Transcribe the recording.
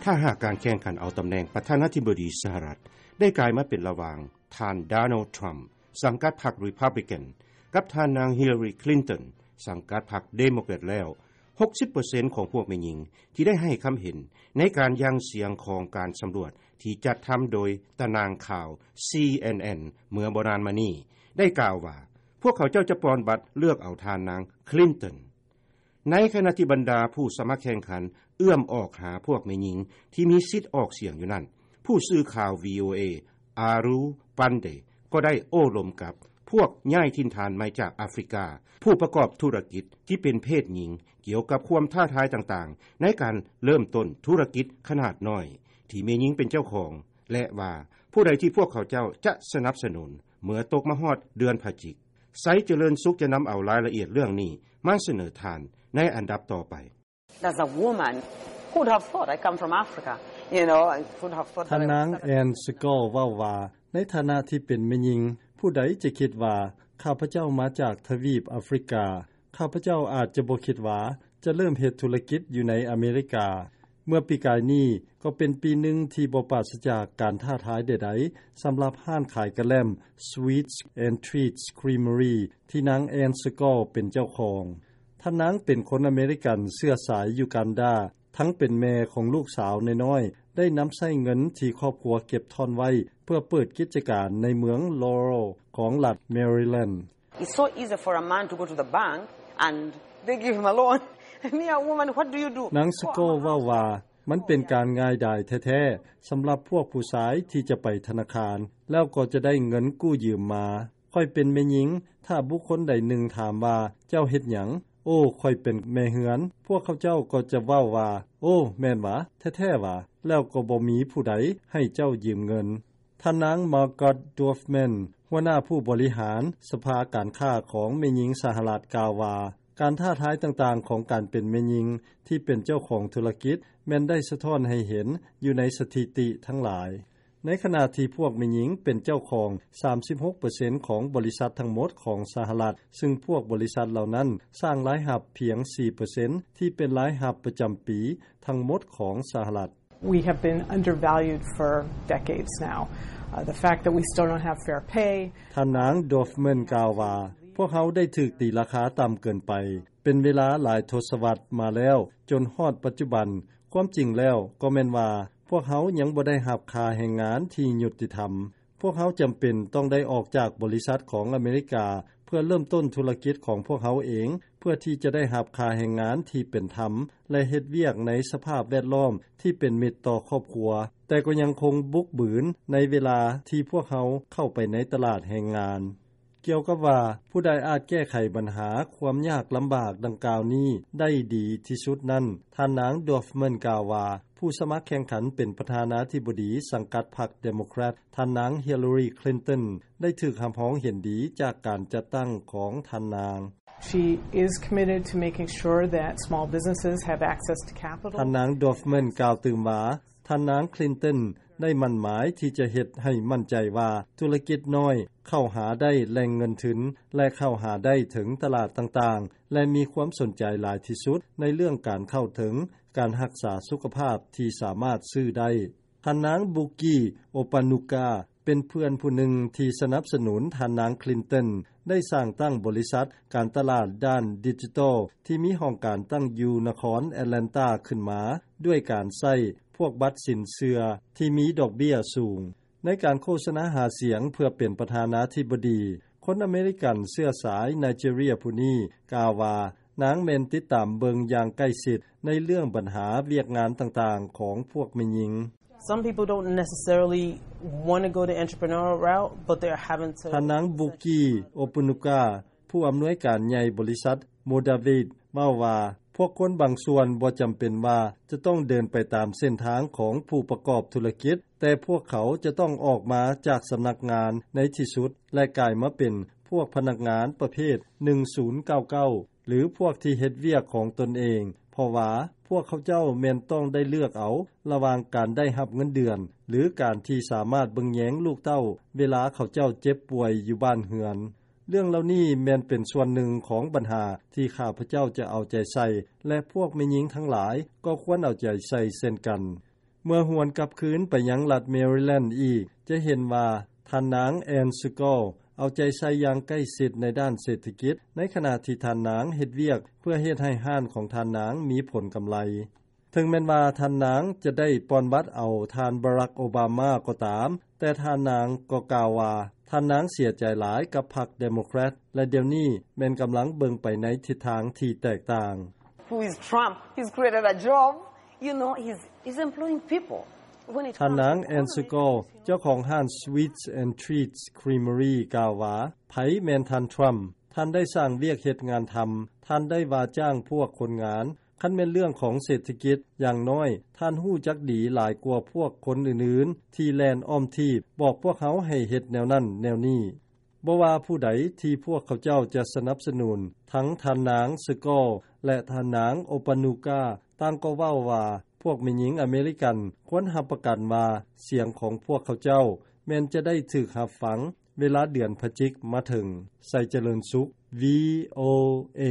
ຖ້າຫາກການແຂ່ງຂັນເອົາຕຳແໜ່ງປະທານາທິບໍດີສະຫະລັດ ໄດ້ກາຍມາເປັນລະຫວ່າງ ທ່ານ Donald Trump ສັງກັດພັກ Republican ກັບທ່ານນາງ Hillary Clinton ສັງກັດພັກ Democrat ແລ້ວ ຫົກສິບເປີເຊັນຂອງພວກແມ່ຍິງທີ່ໄດ້ໃຫ້ຄຳເຫັນໃນການຢ່າງສຽງຂອງການສຳຫຼວດທີ່ຈັດທຳໂດຍຕະໜ່າງຂ່າວ CNN ເມື່ອບໍ່ນານມານີ້ ໄດ້ກ່າວວ່າ ພວກເຂົາເຈົ້າຈະປ່ອນບັດເລືອກເອົາທ່ານນາງ Clinton. ໃນຂະນະທີ່ບັນດາຜູ້ສະໝັກແຂ່ງຂັນເອື້ອມອອກຫາພວກແມ່ຍິງທີ່ມີສິດອອກສຽງຢູ່ນັ້ນ ຜູ້ສື່ຂ່າວ VOA Aru Pande ກໍໄດ້ໂອ້ລົມກັບພວກຍ້າຍຖິ່ນຖານໃໝ່ຈາກອາຟຣິກາ ຜູ້ປະກອບທຸລະກິດທີ່ເປັນເພດຍິງ ກ່ຽວກັບຄວາມທ້າທາຍຕ່າງໆ ໃນການເລີ່ມຕົ້ນທຸລະກິດຂະໜາດນ້ອຍ ທີ່ແມ່ຍິງເປັນເຈົ້າຂອງ ແລະວ່າ ຜູ້ໃດທີ່ພວກເຂົາເຈົ້າຈະສະໜັບສະໜູນ ເມື່ອຕົກມາຮອດເດືອນພະຈິກ. ໄຊຈະເລີນສຸກຈະນຳເອົາລາຍລະອຽດເລື່ອງນີ້ມາສະເໜີທ່ານໃນອັນດັບຕໍ່ໄປ. As a woman, who would have thought? I come from Africa, you know, and who would have thought that I would ທ່ານນາງ Ann Scott ເວົ້າວ່າ ໃນຖານະທີ່ເປັນແມ່ຍິງ ຜູ້ໃດຈະຄິດວ່າຂ້າພະເຈົ້າມາຈາກທະວີບອາຟຣິກາ? ຂ້າພະເຈົ້າອາດຈະບໍ່ຄິດວ່າຈະເລີ່ມເຮັດທຸລະກິດຢູ່ໃນອາເມລິກາ. ເມື່ອປີກາຍນີ້ກໍເປັນປີໜຶ່ງທີ່ບໍ່ປາສະຈາກການທ້າທາຍໃດໆ ສຳລັບຮ້ານຂາຍກະແລັມ Sweets and Treats Creamery ທີ່ນາງ Ann Scott ເປັນເຈົ້າຂອງ. ທ່ານນາງເປັນຄົນອາເມລິກັນເຊື້ອສາຍຢູກັນດາ ທັງເປັນແມ່ຂອງລູກສາວນ້ອຍໆ ໄດ້ນຳໃຊ້ເງິນທີ່ຄອບຄົວເກັບທ້ອນໄວ້ ເພື່ອເປີດກິດຈະການໃນເມືອງ Laurel ຂອງລັດ Maryland. It's so easy for a man to go to the bank and they give him a loan. Me, a woman, what do you do? ນາງ Scott ເວົ້າວ່າ ມັນເປັນການງ່າຍດາຍແທ້ໆ ສຳລັບພວກຜູ້ຊາຍທີ່ຈະໄປທະນາຄານ ແລ້ວກໍຈະໄດ້ເງິນກູ້ຢືມມາ. ຂ້ອຍເປັນແມ່ຍິງ ຖ້າບຸກຄົນໃດໜຶ່ງຖາມວ່າ ເຈົ້າເຮັດຫຍັງ? ໂອ້ ຂ້ອຍເປັນແມ່ເຮືອນ. ພວກເຂົາເຈົ້າກໍຈະເວົ້າວ່າ ໂອ້ ແມ່ນຫວາ? ແທ້ໆຫວາ? ແລ້ວກໍບໍ່ມີຜູ້ໃດໃຫ້ເຈົ້າຢືມເງິນ. ທ່ານນາງ Margot Dorfman ຫົວໜ້າຜູ້ບໍລິຫານສະພາການຄ້າຂອງແມ່ຍິງສະຫະລັດ ກ່າວວ່າ ການທ້າທາຍຕ່າງໆຂອງການເປັນແມ່ຍິງທີ່ເປັນເຈົ້າຂອງທຸລະກິດ ແມ່ນໄດ້ສະທ້ອນໃຫ້ເຫັນຢູ່ໃນສະຖິຕິທັງຫຼາຍ. ໃນຂະນະທີ່ພວກແມ່ຍິງເປັນເຈົ້າຂອງສາມສິບຫົກເປີເຊັນຂອງບໍລິສັດທັງໝົດຂອງສະຫະລັດ, ຊຶ່ງພວກບໍລິສັດເຫຼົ່ານັ້ນສ້າງລາຍຮັບພຽງສີ່ເປີເຊັນ ທີ່ເປັນລາຍຮັບປະຈຳປີທັງໝົດຂອງສະຫະລັດ. We have been undervalued for decades now. Uh, the fact that we still don't have fair pay. ທ່ານນາງ Dorfman ກ່າວວ່າ ພວກເຮົາໄດ້ຖືກຕີລາຄາຕ່ຳເກີນໄປ ເປັນເວລາຫຼາຍທົດສະວັດມາແລ້ວ ຈົນຮອດປັດຈຸບັນ. ຄວາມຈິງແລ້ວກໍແມ່ນວ່າ ພວກເຮົາຍັງບໍ່ໄດ້ຮັບຄ່າແຮງງານທີ່ຍຸຕິທຳ. ພວກເຮົາຈຳເປັນຕ້ອງໄດ້ອອກຈາກບໍລິສັດຂອງອາເມລິກາ ເພື່ອເລີ່ມຕົ້ນທຸລະກິດຂອງພວກເຮົາເອງ ເພື່ອທີ່ຈະໄດ້ຮັບຄ່າແຮງງານທີ່ເປັນທຳ ແລະ ເຮັດວຽກໃນສະພາບແວດລ້ອມທີ່ເປັນມິດຕໍ່ຄອບຄົວ, ແຕ່ກໍຍັງຄົງບຸກບືນໃນເວລາທີ່ພວກເຮົາເຂົ້າໄປໃນຕະຫຼາດແຮງງານ. ກ່ຽວກັບວ່າ ຜູ້ໃດອາດແກ້ໄຂບັນຫາຄວາມຍາກລຳບາກດັ່ງກ່າວນີ້ໄດ້ດີທີ່ສຸດນັ້ນ, ທ່ານນາງ Dorfman ກ່າວວ່າ ຜູ້ສະໝັກແຂ່ງຂັນເປັນປະທານາທິບໍດີສັງກັດພັກ Democrat ທ່ານນາງ Hillary Clinton ໄດ້ຖືກຮັບຮອງເຫັນດີຈາກການຈັດຕັ້ງຂອງທ່ານນາງ. She is committed to making sure that small businesses have access to capital. ທ່ານນາງ Dorfman ກ່າວຕື່ມວ່າ ທ່ານນາງ Clinton ໄດ້ໝັ້ນໝາຍທີ່ຈະເຮັດໃຫ້ໝັ້ນໃຈວ່າ ທຸລະກິດນ້ອຍເຂົ້າຫາໄດ້ແຫຼ່ງເງິນທຶນ ແລະ ເຂົ້າຫາໄດ້ເຖິງຕະຫຼາດຕ່າງໆ ແລະ ມີຄວາມສົນໃຈຫຼາຍທີ່ສຸດໃນເລື່ອງການເຂົ້າເຖິງການຮັກສາສຸຂະພາບທີ່ສາມາດຊື້ໄດ້. ທ່ານນາງ Buki Opanuka ເປັນເພື່ອນຜູ້ໜຶ່ງທີ່ສະໜັບສະໜູນທ່ານນາງ Clinton ໄດ້ສ້າງຕັ້ງບໍລິສັດການຕະຫຼາດດ້ານດິຈິຕອລ ທີ່ມີຫ້ອງການຕັ້ງຢູ່ນະຄອນ Atlanta ຂຶ້ນມາ ດ້ວຍການໃຊ້ພວກບັດສິນເຊື່ອທີ່ມີດອກເບ້ຍສູງ. ໃນການໂຄສະນາຫາສຽງເພື່ອເປັນປະທານາທິບໍດີ, ຄົນອາເມລິກັນເຊື້ອສາຍໄນເຈເຣຍຜູ້ນີ້ກ່າວວ່າ ນາງແມ່ນຕິດຕາມເບິ່ງຢ່າງໃກ້ຊິດໃນເລື່ອງບັນຫາວຽກງານຕ່າງໆຂອງພວກແມ່ຍິງ. Some people don't necessarily want to go the entrepreneurial route, but they're having to ທ່ານນາງ ບຸກກີ ໂອປຸນຸກາ ຜູ້ອຳນວຍການໃຫຍ່ບໍລິສັດ ໂມດາເວດ ເວົ້າວ່າ ພວກຄົນບາງສ່ວນບໍ່ຈຳເປັນວ່າຈະຕ້ອງເດີນໄປຕາມເສັ້ນທາງຂອງຜູ້ປະກອບທຸລະກິດ, ແຕ່ພວກເຂົາຈະຕ້ອງອອກມາຈາກສຳນັກງານໃນທີ່ສຸດ ແລະ ກາຍມາເປັນພວກພະນັກງານປະເພດໜຶ່ງສູນເກົ້າເກົ້າ ຫຼື ພວກທີ່ເຮັດວຽກຂອງຕົນເອງ, ເພາະວ່າພວກເຂົາເຈົ້າແມ່ນຕ້ອງໄດ້ເລືອກເອົາລະຫວ່າງການໄດ້ຮັບເງິນເດືອນ ຫຼື ການທີ່ສາມາດເບິ່ງແຍງລູກເຕົ້າເວລາເຂົາເຈົ້າເຈັບປ່ວຍຢູ່ບ້ານເຮືອນ. ເລື່ອງເຫຼົ່ານີ້ແມ່ນເປັນສ່ວນໜຶ່ງຂອງບັນຫາທີ່ຂ້າພະເຈົ້າຈະເອົາໃຈໃສ່ ແລະ ພວກແມ່ຍິງທັງຫຼາຍກໍຄວນເອົາໃຈໃສ່ເຊັ່ນກັນ. ເມື່ອຫວນກັບຄືນໄປຍັງລັດ Maryland ອີກ ຈະເຫັນວ່າ ທ່ານນາງ Ann Segal ເອົາໃຈໃສ່ຢ່າງໃກ້ຊິດໃນດ້ານເສດຖະກິດ ໃນຂະນະທີ່ທ່ານນາງເຮັດວຽກເພື່ອເຮັດໃຫ້ຮ້ານຂອງທ່ານນາງມີຜົນກຳໄລ. ເຖິງແມ່ນວ່າທ່ານນາງຈະໄດ້ປ່ອນບັດເອົາທ່ານ Barack Obama ກໍຕາມ, ແຕ່ທ່ານນາງກໍກ່າວວ່າ ທ່ານນາງເສຍໃຈຫຼາຍກັບພັກ Democrat ແລະດຽວນີ້ແມ່ນກຳລັງເບິ່ງໄປໃນທິດທາງທີ່ແຕກຕ່າງ. Who is Trump? He's created a job. You know, he's, he's employing people. When it ທ່ານນາງ comes to Ann Segal, ເຈົ້າຂອງຮ້ານ Sweets and Treats Creamery ກ່າວວ່າ ໃຜແມ່ນທ່ານ Trump? ທ່ານໄດ້ສ້າງວຽກເຮັດງານທຳ, ທ່ານໄດ້ວ່າຈ້າງພວກຄົນງານ. ຄັນແມ່ນເລື່ອງຂອງເສດຖະກິດ, ຢ່າງນ້ອຍທ່ານຮູ້ຈັກດີຫຼາຍກວ່າພວກຄົນອື່ນໆ ທີ່ແລ່ນອ້ອມທີບບອກພວກເຮົາໃຫ້ເຮັດແນວນັ້ນແນວນີ້. ບໍ່ວ່າຜູ້ໃດທີ່ພວກເຂົາເຈົ້າຈະສະໜັບສະໜູນ, ທັງທ່ານນາງ Segal ແລະ ທ່ານນາງ Opanuka ຕ່າງກໍເວົ້າວ່າ ພວກແມ່ຍິງອາເມລິກັນຄວນຮັບປະກັນວ່າ ສຽງຂອງພວກເຂົາເຈົ້າແມ່ນຈະໄດ້ຖືກຮັບຟັງເວລາເດືອນພະຈິກມາເຖິງ. ໄຊຈະເລີນສຸກ VOA.